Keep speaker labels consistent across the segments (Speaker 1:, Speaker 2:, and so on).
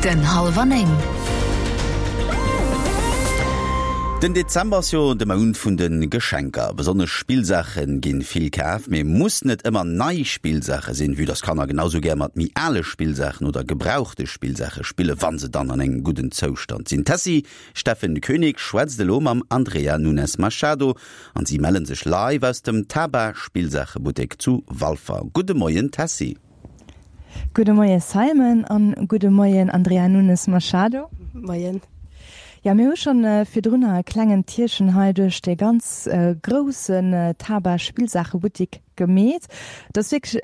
Speaker 1: Den Hallwer 9.
Speaker 2: Den Dezember ass jo de Mount vun de Geschenker. Besonnesch Spillsaache ginn vill kaf, mee muss net ëmmer nei Spillsaache sinn, vue dass Kanner genau sou gär mat méi ale Spillsaachen oder gebrauchte Spillsaache spille wann se dann an engem gudden Zoustand sinn. D'Tessy Steffen Koenig schwätzt elo mam Andrea Nunes Machado an si mellen sech live aus dem Taba Spillsaachebuttek zu Walfer. Gudde Moien Tessy.
Speaker 3: Gudde Moie Simon an gudde Moien Andrea Nunes Machado.
Speaker 4: Moien.
Speaker 3: Jo, mir hu schonn virdrunner e klengen Tierchen hei duerch dee ganz groussen Taba Spillsaachebuttik gemeet. Et ass wierklech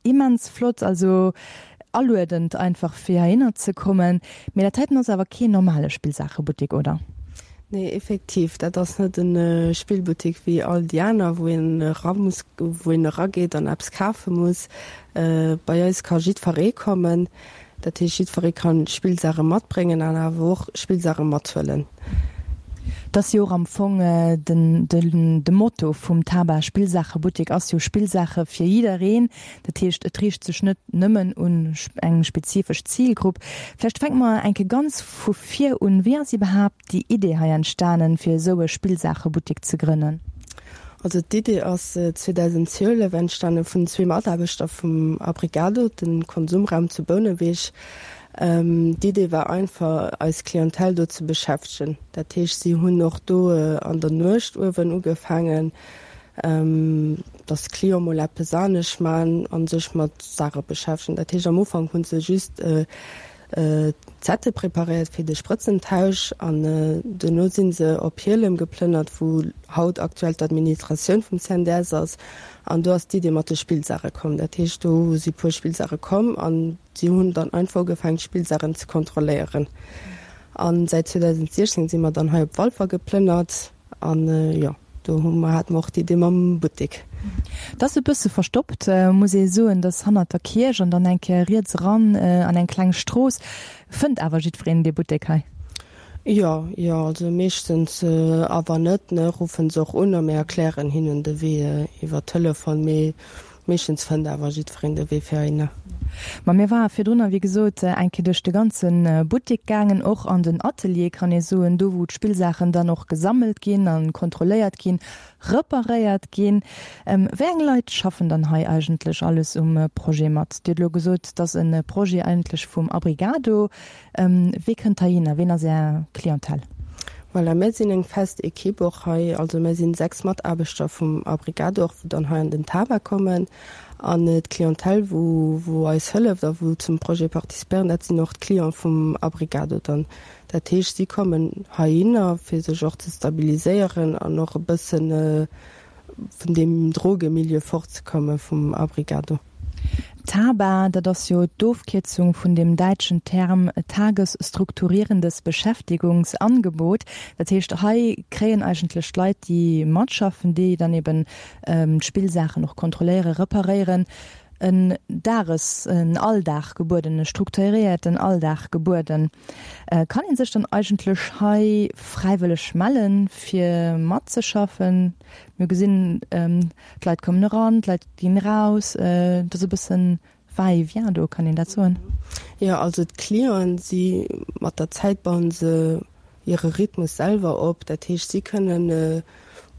Speaker 3: immens flott, also aluedend einfach fir heihinner ze kommen. Mee dat heiten ass awer keen normale Spillsaachebuttik, oder?
Speaker 4: Nee, effektiv, dat ass net e Spillbuttik wéi all déi aner, wou een era muss, wou een erageet an eppes kafe muss. Bei eis ka jiddferee kommen. Dat heescht, jiddferee ka Spillsaache matbréngen an awer och Spillsaache mathuelen.
Speaker 3: Et ass jo och am Fong den, de Motto vum Taba Spillsaachebuttik ass jo Spillsaache fir jiddereen. Dat heescht, et riicht sech net nëmmen un eng spezifesch Zilgrupp. Vläicht fänke mer eng Kéier ganz vu vir un. Wéi ass iwwerhaapt déi Idee hei entstanen, fir esou e Spillsaachebuttik ze grënnen?
Speaker 4: Also d'Idee ass 2012 entstanen vun zwee Mataarbechter vum Abrigado, de Konsumraum zu Bouneweg. D'Idee war einfach, eis Clientèle do ze beschäftegen. Dat heescht, si hunn och do an der Nuecht uewen ugefaangen, dass d'Clienten mol eppes anescht man a sech mat Saache beschäftegen. Dat heescht, am Ufank hu se just Zettel preparéiert fir de Sprëtzentausch an duerno si se op Hielem geplënnert, wou haut aktuell d'Administratioun vum CNDS ass. An do ass d'Idee mat de Spillsaache komm. Dat heescht, do si puer Spillsaache komm an si hunn dann einfach ugefaangen, d'Spillsaachen ze kontrolléieren. A säit 2016 si mer dann hei op Walfer geplënnert an jo. Do hu mer, hate mer och d'Idee mam Buttek.
Speaker 3: Et ass e bësse verstoppt, muss ee soen. Et ass hannert der Kierch an dann eng Kéier riets eran an eng kleng Strooss. Fënnt awer jiddwereen dee Buttek hei?
Speaker 4: Jo, jo, also meeschtens. A wann net, ne, ruffen se och un a mir erklären hinnen de Wee iwwer Telefon. Mee Meeschtens fënnt awer jiddwereen de Wee fir heihinner.
Speaker 3: Ma mir ware virdrunner, wéi gesot, eng Kéier duerch de ganze Buttek gaangen, och an den Atelier, kann ee soen, do wou d'Spillsaachen dann och gesammelt ginn a kontrolléiert ginn, reparéiert ginn. Wéi eng Leit schaffen dann hei eigentlech alles um Projet mat? Dir hutt elo gesot, et ass e Projet eigentlech vum Abrigado. Wee kënnt heihinner? Ween ass Är Clientèle?
Speaker 4: Voilà, mär sinn eng fest Equipe och hei. Also mär sinn 6 Mataarbechter vum Abrigado och, wou dann hei an den Taba kommen. An d'Clientèle, wou, wou eis hëlleft a wou zum Projet participéieren, dat sinn och d'Cliente vum Abrigado dann. Dat heescht, si kommen heihinner, fir sech och ze stabiliséieren an och e bëssen vun deem Drogemilieu fortzekomme vum Abrigado.
Speaker 3: TABA, dat ass jo d'Ofkierzung vun dem däitschen Term Tagesstrukturierendes Beschäftigungsangebot. Dat heescht, hei kréien eigentlech d'Leit, déi matschaffen, déi dann eben d'Spillsaachen och kontrolléieren, reparéieren, en Dages-, en Alldag gebueden, e strukturéierten Alldag gebueden. Kann ee sech dann eigentlech hei fräiwëlleg mellen, fir matzeschaffen? Mir gesinn, D'Leit kommen eran, d'Leit ginn eraus. Et ass e bëssen Va-et-vient do, kann een dat soen?
Speaker 4: Jo, also d'Clienten, si mat der Zäit bauen se hire Rhythmus selwer op. Dat heescht, si kënnen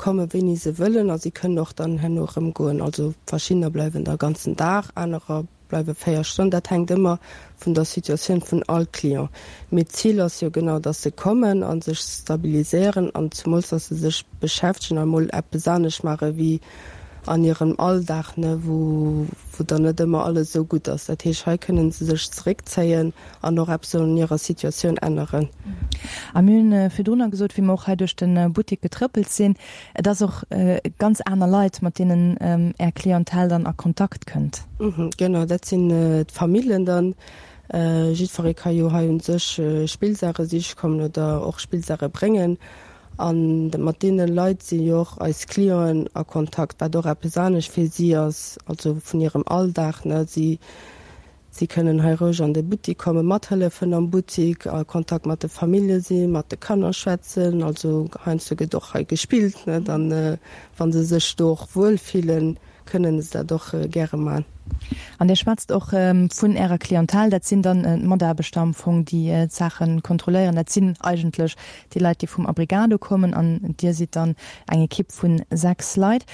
Speaker 4: komme wéini se wëllen a si kënnen och dann herno erëm goen. Also verschiddener bleiwen da ganzen Dag, anerer bleiwe 4 Stonnen, dat hänkt ëmmer vun der Situatioun vun all Client. Mee d'Zil ass jo genau, dass se kommen a sech stabiliséieren an zemools, dass se sech beschäftegen a mol eppes anescht maache wéi an hirem Alldag, ne, wou wou dann net ëmmer alles esou gutt ass. Dat heescht, hei kënnen se sech zeréckzéien an och eppes un hirer Situatioun änneren.
Speaker 3: A mir hunn virdrunner gesot, wéi mer och hei duerch de Buttek getrëppelt sinn, Et ass och ganz aner Leit, mat deenen Är Clientèle dann a Kontakt kënnt.
Speaker 4: Genau, dat sinn d'Famillen dann. Jiddweree ka jo hei un sech Spillsaache siche kommen oder och Spillsaache bréngen. A mat deene Leit si jo och eis Clienten a Kontakt, wat och eppes anescht fir si ass, also vun hirem Alldag. Si Si kënnen hei roueg an de Buttik kommen, mathëllefen am Buttik, a Kontakt mat de Famillje sinn, mat de Kanner schwätzen. Also heiansdo gëtt och hei gespillt, net? An wa se sech do och wuel fillen, kënnen se dat och gäre man.
Speaker 3: An Dir schwätzt och vun Ärer Clientèle, dat sinn dann d'Mataarbechter am Fong, déi d'Saache kontrolléieren. Dat sinn eigentlech déi Leit, déi vum Abrigado kommen an Dir sidd dann eng Ekipp vu 6 Leit.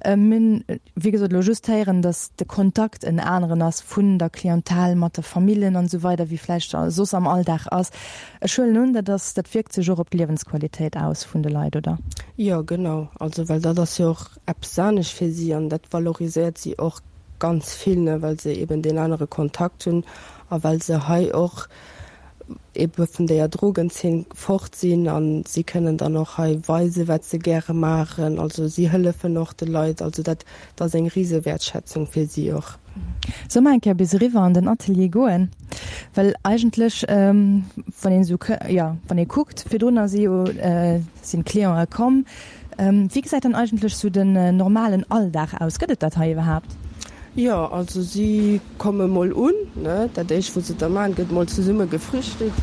Speaker 3: Mir hunn, wéi gesot, elo just héieren, datt de Kontakt en aneren ass vun der Clientèle mat de Famillen an esou weider, wéi vläicht soss am Alldag ass. Ech huelen un, dat ass, dat wierkt sech och op d'Liewensqualitéit aus vun de Leit, oder?
Speaker 4: Jo, genau. Also, well dat ass jo och eppes anescht fir si an dat valoriséiert si och ganz vill, ne, well se eben deen anere Kontakt hunn a well se hei och ebe vun deeër Drogenzeen fort sinn a si kënnen dann och hei weisen, wat se gäre maachen. Also si hëllefen och de Leit. Also dat ass eng rise Wäertschätzung fir si och.
Speaker 3: Solle mer eng Kéier bis eriwwer an den Atelier goen? Well eigentlech, wann een esou, jo, wann ee kuckt, virdrunner si jo, sinn d'Clientë komm. Wéi gesäit dann eigentlech esou den normalen Alldag aus? Gëtt et dat hei iwwerhaapt?
Speaker 4: Jo, also si komme mol un, ne, dat éischt wou se da maachen, gëtt mol zesumme gefrühstückt,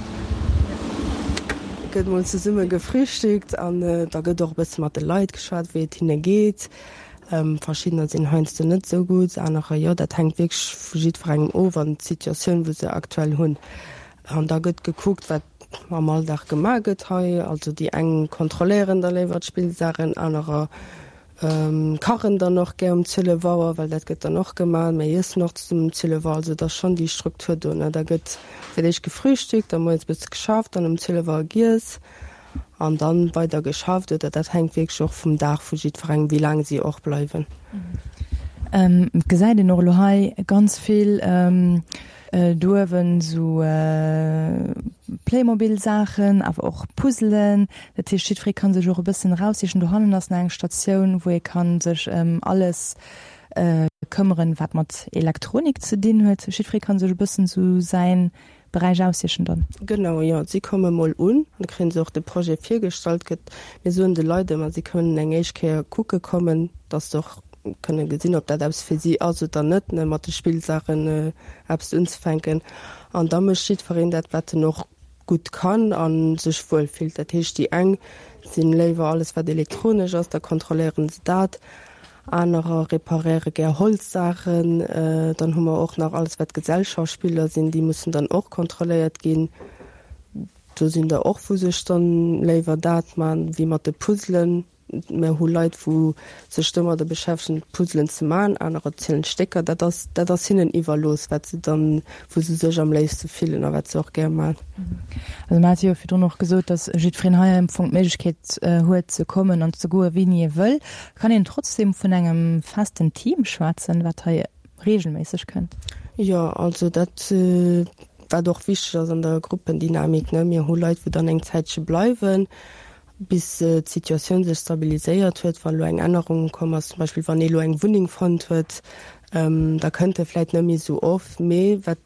Speaker 4: gëtt mol zesumme gefrühstückt an da gëtt och e bësse mat de Leit geschwat, wéi et hinne geet. Verschiddener sinn heiansdo net esou gutt, anerer jo. Dat hänkt wierklech vu jiddwerengem of an d'Situatioun, wou se aktuell hunn. An da gëtt gekuckt, wat am Alldag gemaach gëtt hei. Also déi eng kontrolléieren da léiwer d'Spillsaachen, anerer kachen dann och gär um 12 Auer, well dat gëtt dann och gemaach. Mir iessen och zesummen um 12 Auer. Also et ass schonn déi Struktur do, ne. Da gëtt fir d'éischt gefrühstückt, da moies e bësse geschafft, dann um 12 Auer giess an dann weider geschafft. Oder dat hänkt wierklech och vum Dag vu jiddwerengem, wéi laang si och bleiwen.
Speaker 3: Et gesäit een och elo hei ganz vill Do uewen sou Playmobil Saachen, awer och Puzzelen. Dat heescht jiddweree kann sech och e bëssen eraussichen. Dohannen ass nach eng Statioun wou ee kann sech ëm alles këmmeren wat mat Elektronik ze dinn huet. Jiddweree kann sech e bëssen sou säin Beräich aussichen dann.
Speaker 4: Genau, jo. Si komme mol un, da kréien se och de Projet virgestallt. Gëtt, mir soen de Leit ëmmer, si kënnen eng éischt Kéier kucke kommen, dass se och kënne gesinn, ob dat eppes fir si ass oder net, ne, mat de Spillsaachen eppes unzefänken. An da mécht jiddwereen dat, wat en och gutt kann a sech wuel fillt. Dat heescht, déi eng si léiwer alles, wat elektronesch ass, da kontrolléiere se dat, anerer reparéiere gär Holzsaachen. Dann hu mer och nach alles, wat Gesellschaftsspiller sinn, déi mussen dann och kontrolléiert ginn. Do sinn der och, wou sech dann léiwer dat man, wéi mat de Puzzelen. Mir hu Leit, wou sech domadder beschäftegen, Puzzelen ze maachen, anerer zielen d'Stécker. Dat ass, dat ass hinnen iwwerlooss, wat se dann, wou se sech am léifste fillen a wat se och gär maachen.
Speaker 3: Also mer hate jo virdrun och gesot, datt jiddwereen hei am Fong d'Méiglechkeet huet ze kommen an ze goen, wéini e wëll. Kann een trotzdem vun engem festen Team schwätzen, wat hei reegelméisseg kënnt?
Speaker 4: Jo, also dat, wat och wichteg ass an der Gruppendynamik, ne, mir hu Leit, wou dann eng Zäitche bleiwen, bis d'Situatioun sech stabiliséiert huet, wa lo eng Ännerung komm ass, zum Beispill wann ee lo eng Wunneng fonnt huet, da kënnt e vläit net méi esou oft. Mee wat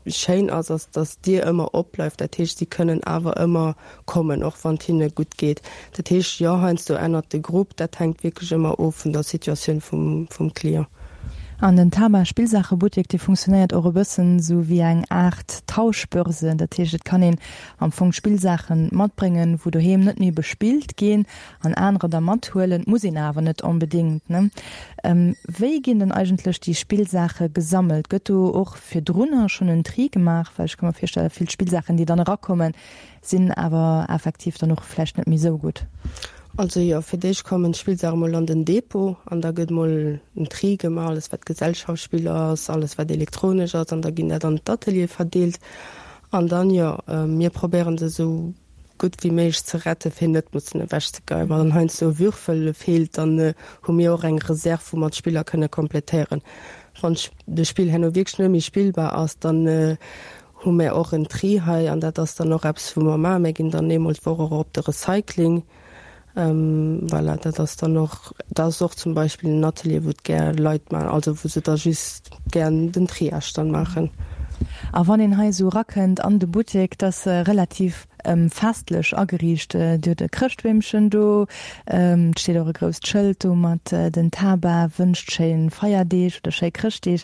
Speaker 4: schéin ass, ass, datt d'Dier ëmmer opbleift. Dat heescht, si kënnen awer ëmmer kommen, och wann et hinne gutt geet. Dat heescht, jo, heiansdo ännert de Grupp, dat hänkt wierklech ëmmer of vun der Situatioun vum Client.
Speaker 3: An den Tama Spillsaachebuttek, dee funktionéiert och e bëssen esou wéi eng Aart Tauschbörse. Dat heescht, et kann een Am Fong Spillsaachen matbréngen, wou doheem net méi bespillt ginn, an anerer da mathuelen. Muss een awer net onbedéngt, ne? Wéi ginn dann eigentlech déi Spillsaache gesammelt? Gëtt do och virdrunner schonn en Tri gemaach? Well ech ka mer virstellen, vill Spillsaachen, déi dann erakommen, sinn awer effektiv dann och vläicht net méi esou gutt.
Speaker 4: Also jo, fir d'éischt kommen d'Spillsaache mol an den Depot an da gëtt mol en Tri gemaach, alles wat Gesellschaftsspiller ass, alles wat elektronesch ass, an da ginn dat an d'Ateliere verdeelt. An dann, jo, mir probéieren se esou gutt wéi méiglech ze retten, fir net mussen ewechzegeien. Wann dann heiansdo e Würfel feelt, dann hu mir och eng Reserv, wou mer d'Spiller kënne komplettéieren. Wann de Spill herno wierklech net méi spillbar ass, dann hu mir och en Tri hei an dat ass dann och eppes, wou mer maachen. Mir ginn dann eemol d'Woch och op de Recycling. Voilà, dat ass dann och, dat ass och zum Beispill en Atelier, wou et gär Leit maachen, also wou se da just gär den Triage dann maachen.
Speaker 3: A wann een hei esou erakënnt an de Buttek, dat ass relativ festlech ageriicht. Dir hutt e Chrëschtbeemchen do, et steet och e grousst Schëld do mat den Taba wënscht schéi Feierdeeg oder schéi Chrëschtdeeg.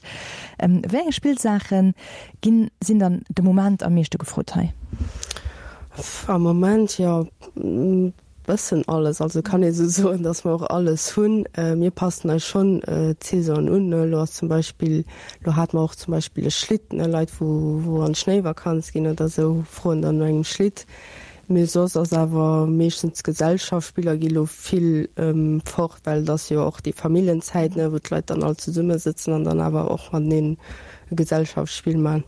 Speaker 3: Wéi eng Spillsaache ginn, sinn dann de Moment am meeschte gefrot hei?
Speaker 4: Am Moment, jo. Bëssen alles, also kann ee sou soen, datt mer och alles hunn. Mir passen eis schonn d'Saisonen un, ne. Elo ass zum Beispill, elo hate mer och zum Beispill e Schlitt, ne, Leit wou wou an d'Schnéivakanz ginn oder sou, froen dann no engem Schlitt. Mee soss ass awer meeschtens d'Gesellschaftsspiller gi lo vill fort, well et ass jo och déi Familljenzäit, ne, wou d'Leit dann all zesumme sëtzen an dann awer och mateneen e Gesellschaftsspill man.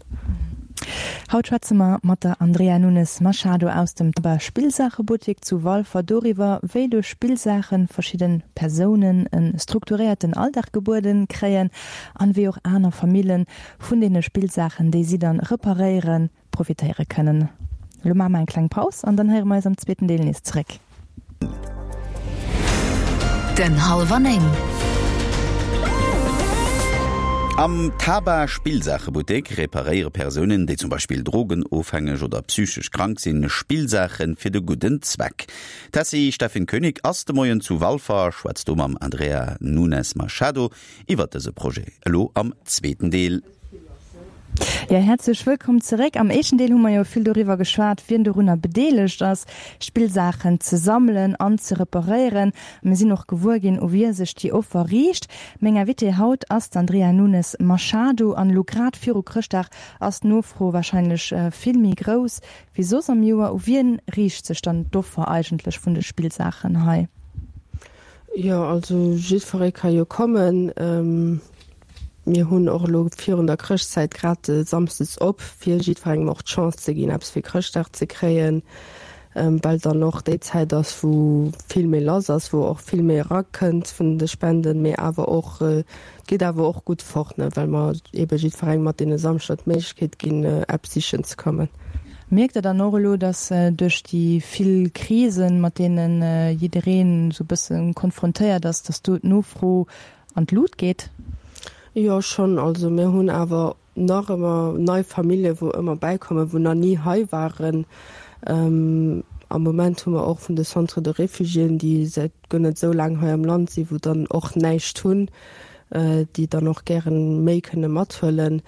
Speaker 3: Haut schwätze mer mat der Andrea Nunes Machado aus dem Taba Spillsaachebuttek zu Walfer doriwwer, wéi duerch Spillsaache verschidde Persounen e strukturéierten Alldag gebueden kréien an wéi och aner Famillen vun deene Spillsaachen, déi si dann reparéieren, profitéiere kënnen. Elo maache mer eng kleng Paus an dann héiere mer eis am zweeten Deel nees zeréck.
Speaker 1: Den Hallwer 9.
Speaker 2: Am Taba Spillsaachebuttek reparéiere Persounen, déi zum Beispill drogenofhängeg oder psychesch krank sinn, Spillsaache fir de gudden Zweck. D'Tessy Steffen Koenig ass de Moien zu Walfer a schwätzt do mam Andrea Nunes Machado iwwert dëse Projet, elo am zweeten Deel.
Speaker 3: Jo, häerzlech wëllkomm zeréck. Am éischten Deel hu mer jo vill doriwwer geschwat, wien dorunner bedeelegt ass, Spillsaachen ze sammelen an ze reparéieren. A mir sinn och gewuer ginn, u wie sech déi Offer riicht. Meng Invitée haut ass d'Andrea Nunes Machado. An elo grad viru Chrëschtdag ass d'Nofro warscheinlech vill méi grouss wéi soss am Joer. U wien riicht sech dann d'Offer eigentlech vun de Spillsaachen hei?
Speaker 4: Jo, also jiddweree ka jo kommen. Mir hunn och elo virun der Chrëschtzäit grad samsdes op, fir jiddwerengem och d'Chance ze ginn, eppes fir Chrëschtdag ze kréien, well dann och déi Zäit ass, wou vill méi lass ass, wou och vill méi erakënnt vun de Spenden, mee awer och, et geet awer och gutt fort, ne, well mer eebe jiddwerengem mat deene Samschder d'Méiglechkeet ginn, eppes sichen ze kommen.
Speaker 3: Mierkt Der dann och elo, datt duerch déi vill Krisen, mat deene jiddereen esou e bësse konfrontéiert ass, datt do d'Nofro an d'Lut geet?
Speaker 4: Jo schonn, also mir hunn awer nach ëmmer nei Famillje wou ëmmer bäikommen, wou nach ni hei waren. Am Moment hu mer och vun de Centres de réfugiéen, déi säit guer net esou laang hei am Land sinn, wou dann och näischt hunn, déi dann och gären méi kënne mathuelen.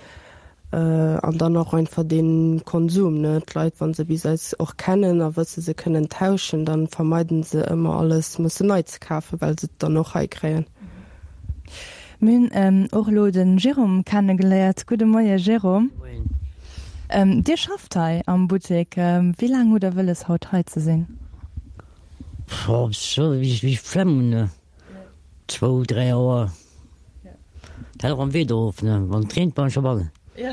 Speaker 4: An dann och einfach dee Konsum, ne? D'Leit, wa se bis eis och kennen a wësse se kënnen tauschen, da vermeiden se ëmmer alles mussen nei ze kafen, well se et dann och hei kréien.
Speaker 3: Mir hunn och elo de Jérôme kennegeléiert. Gudde Moie Jérôme.
Speaker 5: Moien.
Speaker 3: Dir schafft hei am Buttek. Wéi laang hutt Der wëlles haut hei ze sinn?
Speaker 5: Sou wéi ech d'Flemm hunn, zwou, 3 Auer. Dat hänkt och am Wieder of, ne? Wann et reent, bleiwen ech dobannen.
Speaker 3: Jo,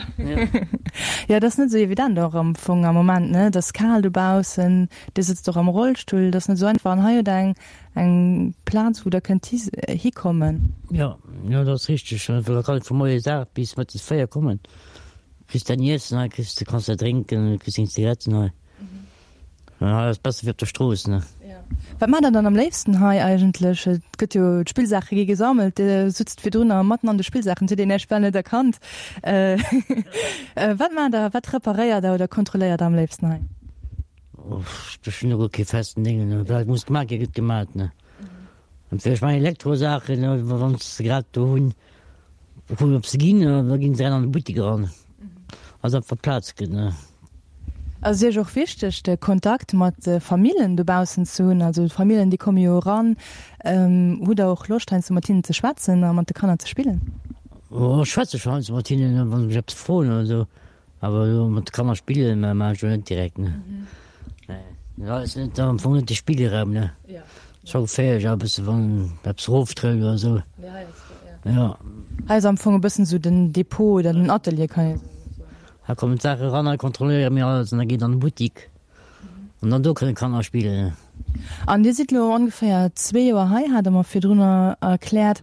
Speaker 3: dat ass net esou evident och am Fong am Moment, ne? Et ass kal dobaussen, Dir sëtzt och am Rollstull, dat ass net esou einfach. An hei hutt Der eng eng Plaz, wou Der kënnt hikommen.
Speaker 5: Jo, jo, dat ass richteg. Da kann ech vu moies 8 bis mëttes 4 kommen. Kriss däin Iessen hei, kriss, kanns däi drénken, kriss deng Zigaretten hei. Ja, ass besser wéi op der Strooss, ne?
Speaker 3: Wat maacht der dann am léifsten hei eigentlech? Et gëtt jo, d'Spillsaache gi gesammelt, Dir sutzt virdrunner matten an de Spillsaachen, et huet een Iech bal net erkannt. Wat maacht der, wat reparéiert der oder kontrolléiert der am léifsten hei?
Speaker 5: Ech hunn do guer kee festen Déngen, ne? Wat muss gemaat ginn, gëtt gemaat, ne? An fir ech maachen Elektrosaachen, wann se grad do hunn. Kucken op se ginn, da ginn se an de Buttek eran. Also einfach Plaz gëtt ne.
Speaker 3: Ass et Iech och wichteg de Kontakt mat de Famillen dobaussen ze hunn? Also d'Famillen déi komme jo eran. Hutt der och Loscht heiansdo mat hinnen ze schwätzen a mat de Kanner ze spillen?
Speaker 5: Jo ech schwätze scho heiansdo mat hinnen, wa se mech eppes froen oder esou. Awer elo mat de Kanner spillen maachen ech elo net direkt ne. Nee, dat ass net am Fong net de Spillraum ne. Scho geféierlech a bësse wann eppes eroftrëllt oder esou.
Speaker 3: Jo. Hei ass am Fong e bëssen esou den Depot oder den Atelier kann ee soen.
Speaker 5: Hei kommen d'Saache eran, hei kontrolléiere mir alles an da geet an de Buttik an dann do kënne Kanner spillen.
Speaker 3: An Dir sidd elo ongeféier zwee Joer hei, hat Der mer virdrunner erkläert.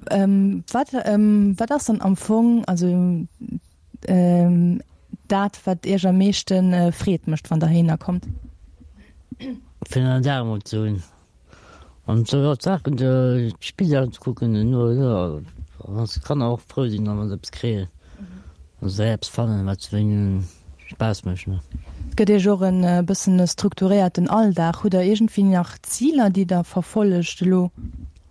Speaker 3: Wat wat ass dann am Fong also dat wat Iech am meeschte Freed mécht wann der heihinner kommt?
Speaker 5: Fir en Dag emol ze hunn an sou jo d'Saachen d'Spillsaachen ze kucken an jo wann d'Kanner och frou sinn wann se eppes kréien wann se eppes fannen wat hinnen Spaass mécht.
Speaker 3: Et gëtt Iech och e bëssen e strukturéierten Alldag. Hutt der iergendwéi nach Ziler déi der verfollegt elo?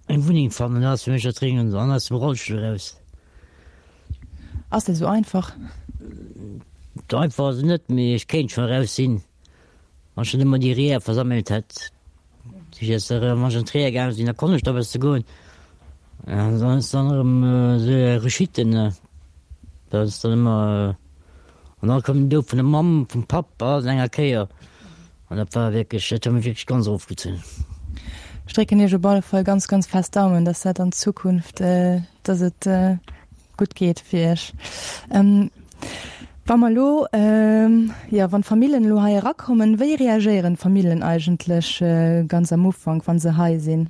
Speaker 5: Eng Wunneng fannen ass fir mech dat Dréngendst an aus dem Rollstull eraus.
Speaker 3: Ass dat esou einfach?
Speaker 5: Einfach ass et net, mee ech kéint scho eraus sinn. Wann ech dann ëmmer déi Reeër versammelt hätt, si ech erëm, wann ech an d'Reeër gaange sinn, da konnt ech da bësse goen. An dann ass dann erëm esou eng Rechute, ne, dat ass dann ëmmer, an da koum den Doud vun der Mamm, vum Papp, alles an enger Kéier. An dat war wierklech, dat huet mech wierklech ganz erofgezunn.
Speaker 3: Ech drécken Iech op alle Fall ganz, ganz fest d'Daumen, dass dat an Zukunft, dass et gutt geet fir Iech. Wa mer elo, jo, wann d'Famillen elo hei erakommen, wéi reagéieren d'Famillen eigentlech ganz am Ufank, wa se hei sinn?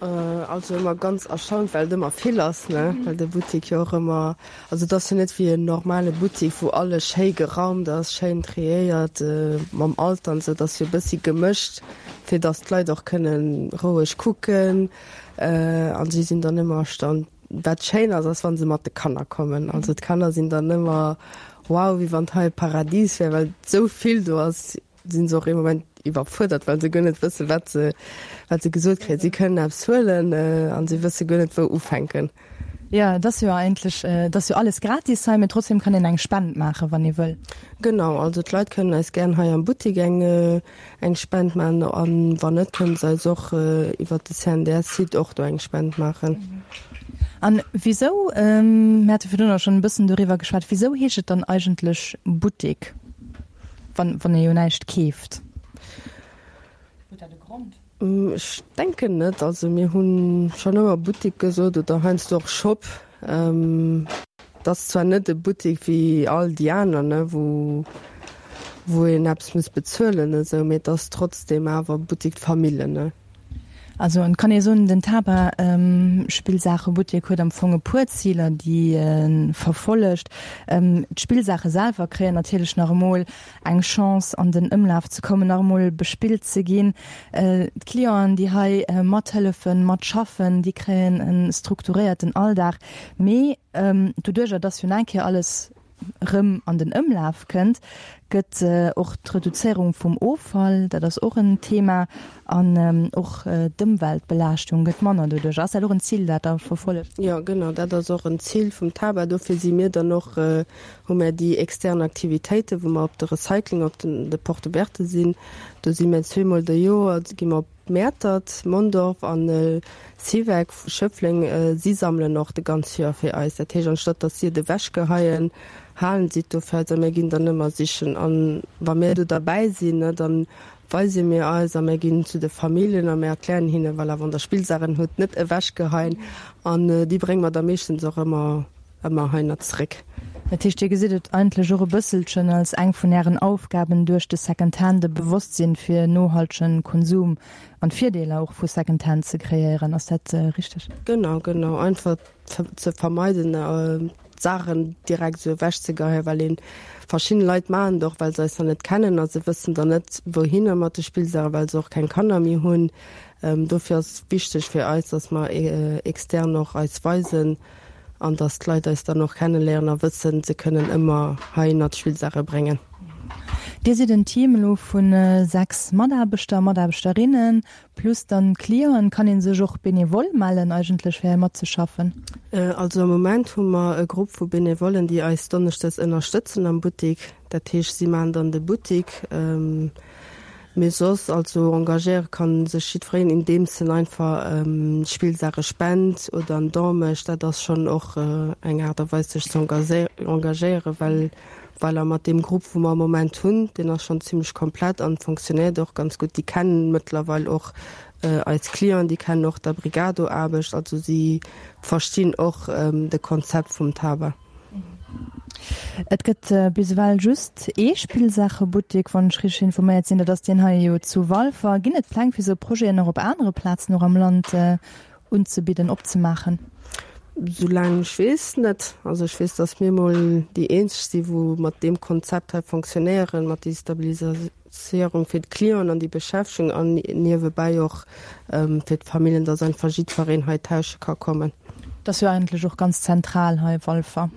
Speaker 4: Also ëmmer ganz erstaunt, well et ëmmer vill ass, ne, well de Buttik jo och ëmmer, also et ass jo net wéi en normale Buttik, wou alles schéi geraumt ass, schéin triéiert mam Alter an esou. Et ass jo e bëssi gemëscht, fir datt d'Leit och kënne roueg kucken an si sinn dann ëmmer erstaunt. Wat schéin ass, ass wa se mat de Kanner kommen. Also d'Kanner sinn dann ëmmer wow, wéi wann hei Paradies wär, well esou vill do ass. Sinn se och ee Moment iwwerfuerdert, well se guer net wëssen, wat se, wat se gesot kréien. Si kënnen eppes huelen an si wësse guer net, wou ufänken.
Speaker 3: Jo, et ass jo eigentlech, et ass jo alles gratis hei, mee trotzdem kann een eng Spend maachen, wann ee wëll.
Speaker 4: Genau, also d'Leit kënnen eis gären hei am Buttik eng, eng Spend maachen an wann net, kënnen se eis och iwwert de CNDS-Site och do eng Spend maachen.
Speaker 3: An wisou, mir hate virdrun och schonn e bëssen doriwwer geschwat, wisou heescht et dann eigentlech Buttik? Wann, wann ee jo näischt keeft.
Speaker 4: Huet dat e Grond? Ech denken net. Also mir hu schonn ëmmer Buttik gesot oder heiansdo och Shop. Et ass zwar net e Buttik wéi all déi aner, ne, wou, wou een eppes muss bezuelen esou, mee et ass trotzdeem awer Buttik d'Famille, ne.
Speaker 3: Also et kann ee soen, den Taba Spillsaachebuttek huet am Fong e puer Ziler, déi e verfollegt. D'Spillsaache selwer kréien natierlech nach emol eng Chance an den Ëmlaf ze kommen, nach emol bespillt ze ginn. D'Clienten, déi hei mathëllefen, matschaffen, déi kréien e strukturéierten Alldag. Mee doduercher, dass jo nach eng Kéier alles rëm an den Ëmlaf kënnt, gëtt och d'Reduzéierung vum Offall, dat ass och en Thema, an och d'Ëmweltbelaaschtung gëtt manner doduerch. Ass dat och en Zil, dat Der verfollegt?
Speaker 4: Jo, genau, dat ass och en Zil vum TABA. Dofir si mir dann och, hu mär déi extern Aktivitéiten, wou mer op de Recycling, op den, de Porte ouverte sinn. Do si mir zweemol de Joer, gi mer op Mäertert, Mondorf an Siweck, Schëffleng, si sammelen och de ganz Joer fir eis. Dat heescht, anstatt datt si et ewechgeheien, halen si et do fir eis a mir ginn dann ëmmer sichen. An wa mir do derbäi sinn, ne, da weise mir eis a mir ginn zu de Familljen a mir erklären hinnen, voilà, wann der Spillsaachen hutt, net ewechgeheien. An déi brénge mer da meeschtens och ëmmer ëmmer heihinner zeréck.
Speaker 3: Dat heescht, Dir gesitt et eigentlech och e bësselchen als eng vun Ären Aufgaben, duerch de Secondhand e Bewosstsinn fir nohaltegen Konsum an d'Virdeeler och vu Secondhand ze kreéieren. Ass dat richteg?
Speaker 4: Genau, genau. Einfach ze vermeiden, d'Saachen direkt esou ewechzegeheien, well een, verschidden Leit maachen et och, well se eis nach net kennen a se wëssen dann net, wouhinner mat de Spillsaachen, well se och keng Kanner méi hunn. Dofir ass et wichteg fir eis, dass mer extern och eis weisen, An dass d'Leit eis dann och kenneléieren a wëssen, se kënnen ëmmer heihinner d'Spillsaache bréngen.
Speaker 3: Dir sidd en Team elo vu 6 Mataarbechter a Mataarbechterinnen, plus dann d'Clienten. Kann ee sech och benevol mellen eigentlech fir hei matzeschaffen?
Speaker 4: Also am Moment hu mer e Grupp vu Benevollen, déi eis donneschdes ënnerstëtzen am Buttik. Dat heescht, si maachen dann de Buttik. Mee soss, also engagéiere kann sech jiddwereen, indeems en einfach Spillsaache spent oder en Don mécht. Dat ass schonn och eng Aart a Weis sech ze engagéieren, well voilà, mat deem Grupp wou mer am Moment hunn, deen ass schonn zimlech komplett an fonctionnéiert och ganz gutt. Déi kennen mëttlerweil och eis Clienten, déi kennen och d'Abrigado-Aarbecht, also si verstinn och de Konzept vum Taba.
Speaker 3: Et gëtt bis ewell just ee Spillsaachebuttek, wann ech richteg informéiert sinn. Dat ass deen hei jo zu Walfer. Ginn et Pläng fir esou Projeten och op anere Plazen och am Land unzebidden, opzemaachen?
Speaker 4: Soulaang ech weess, net. Also ech weess, datt mir mol déi eenzeg si wou mat deem Konzept hei fonctionnéieren, mat déi Stabiliséierung fir d'Clienten an déi Beschäftegung an niewebäi och fir d'Familljen, dass einfach jiddwereen hei tausche ka kommen.
Speaker 3: Et ass jo eigentlech och ganz zentral hei, Walfer.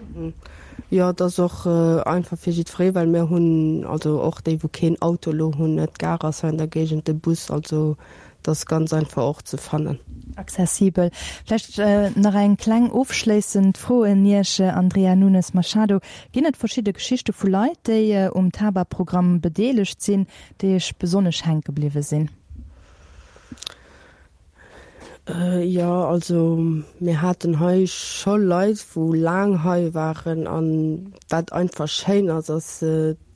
Speaker 4: Jo, et ass och einfach fir jiddweree, well mir hunn also och déi, wou keen Auto elo hunn, d'Gare ass hei an der Géigend, de Bus, also et. Et ass ganz einfach och ze fannen.
Speaker 3: Accessibel. Vläicht nach eng kleng ofschléissend Fro un Iech, Andrea Nunes Machado. Ginn et verschidde Geschichte vu Leit, déi um TaBa-Programm bedeelegt sinn, déi Iech besonnesch hänke bliwwe sinn?
Speaker 4: Jo, also mir haten hei scho Leit, wou laang hei waren. An wat einfach schéin ass, ass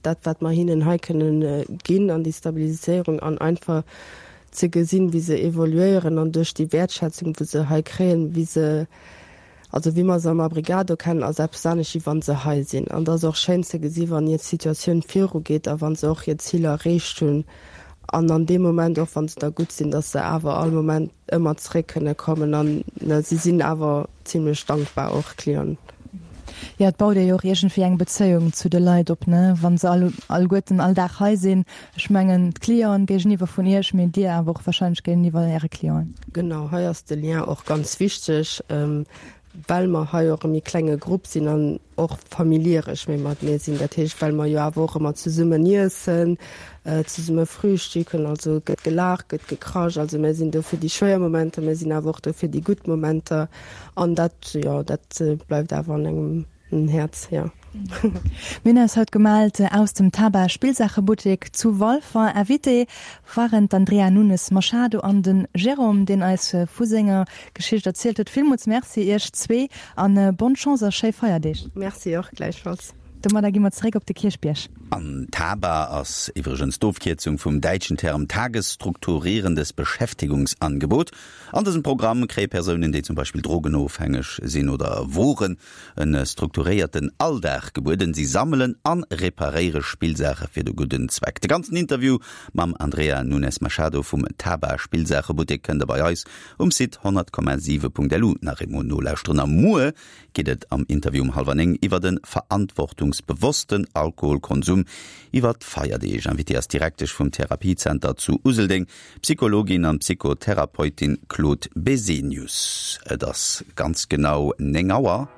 Speaker 4: dat, wat mer hinnen hei kënnen ginn an déi Stabiliséierung an einfach ze gesinn, wéi se evoluéieren an duerch déi Wäertschätzung, wou se hei kréien, wéi se Also wéi mer se am Abrigado kennen, ass eppes anescht wéi wann se hei sinn. An et ass och schéin ze gesi wann hir Situatioun virugeet a wann se och hir Ziler erreecht hunn an an deem Moment och wann se da gutt sinn, datt se awer all Moment ëmmer zeréck kënne kommen an si sinn awer zimlech dankbar och Clienten.
Speaker 3: Jo, et baut ee jo och iergendwéi eng Bezéiung zu de Leit op, ne, wa se all alleguerten all Dag hei sinn. Ech mengen d'Clienten géigeniwwer vun Iech, mee Dir awer och wahrscheinlech géigeniwwer Äre Clienten.
Speaker 4: Genau, hei ass de Lien och ganz wichteg, well mer hei och e méi klenge Grupp sinn an och familieresch méi matenee sinn. Dat heescht, well mer jo awer och ëmmer zesummen iessen, zesumme frühstücken, also et gëtt gelaacht, gëtt gekrasch. Also mir sinn do fir déi schwéier Momenter, mir sinn awer och do fir déi gutt Momenter an dat, jo, dat bleift awer an engem En Häerz, jo.
Speaker 3: Mir hunn eis haut gemellt aus dem Taba Spillsaachebuttek zu Walfer. Invité waren d'Andrea Nunes Machado an de Jérôme, deen eis vu senger Geschicht erzielt huet. Villmools Merci iech zwee an bonne Chance a schéi Feierdeeg.
Speaker 4: Merci och gläichfalls.
Speaker 3: Domadder gi mer zeréck op de Kierchbierg.
Speaker 2: An Taba ass iwwregens d'Ofkierzung vum däitschen Term Tagesstrukturierendes Beschäftigungsangebot. An dësem Programm kréie Persounen, déi zum Beispill drogenofhängeg sinn oder woren, En strukturéierten Alldag gebueden. Si sammelen an reparéiere Spillsaache fir de gudden Zweck. De ganzen Interview mam Andrea Nunes Machado vum Taba Spillsaachebuttek kënnt der bei eis um Site 100,7.lu nach eemol nolauschteren. A muer geet et am Interview um hallwer 9 iwwer de verantwortungsbewossten Alkoholkonsum iwwer d'Feierdeeg. Invitée ass d'Direktesch vum Therapiezenter zu Useldeng, D'Psychologin an Psychotherapeutin Claude Besenius. Et ass ganz genau 9 Auer.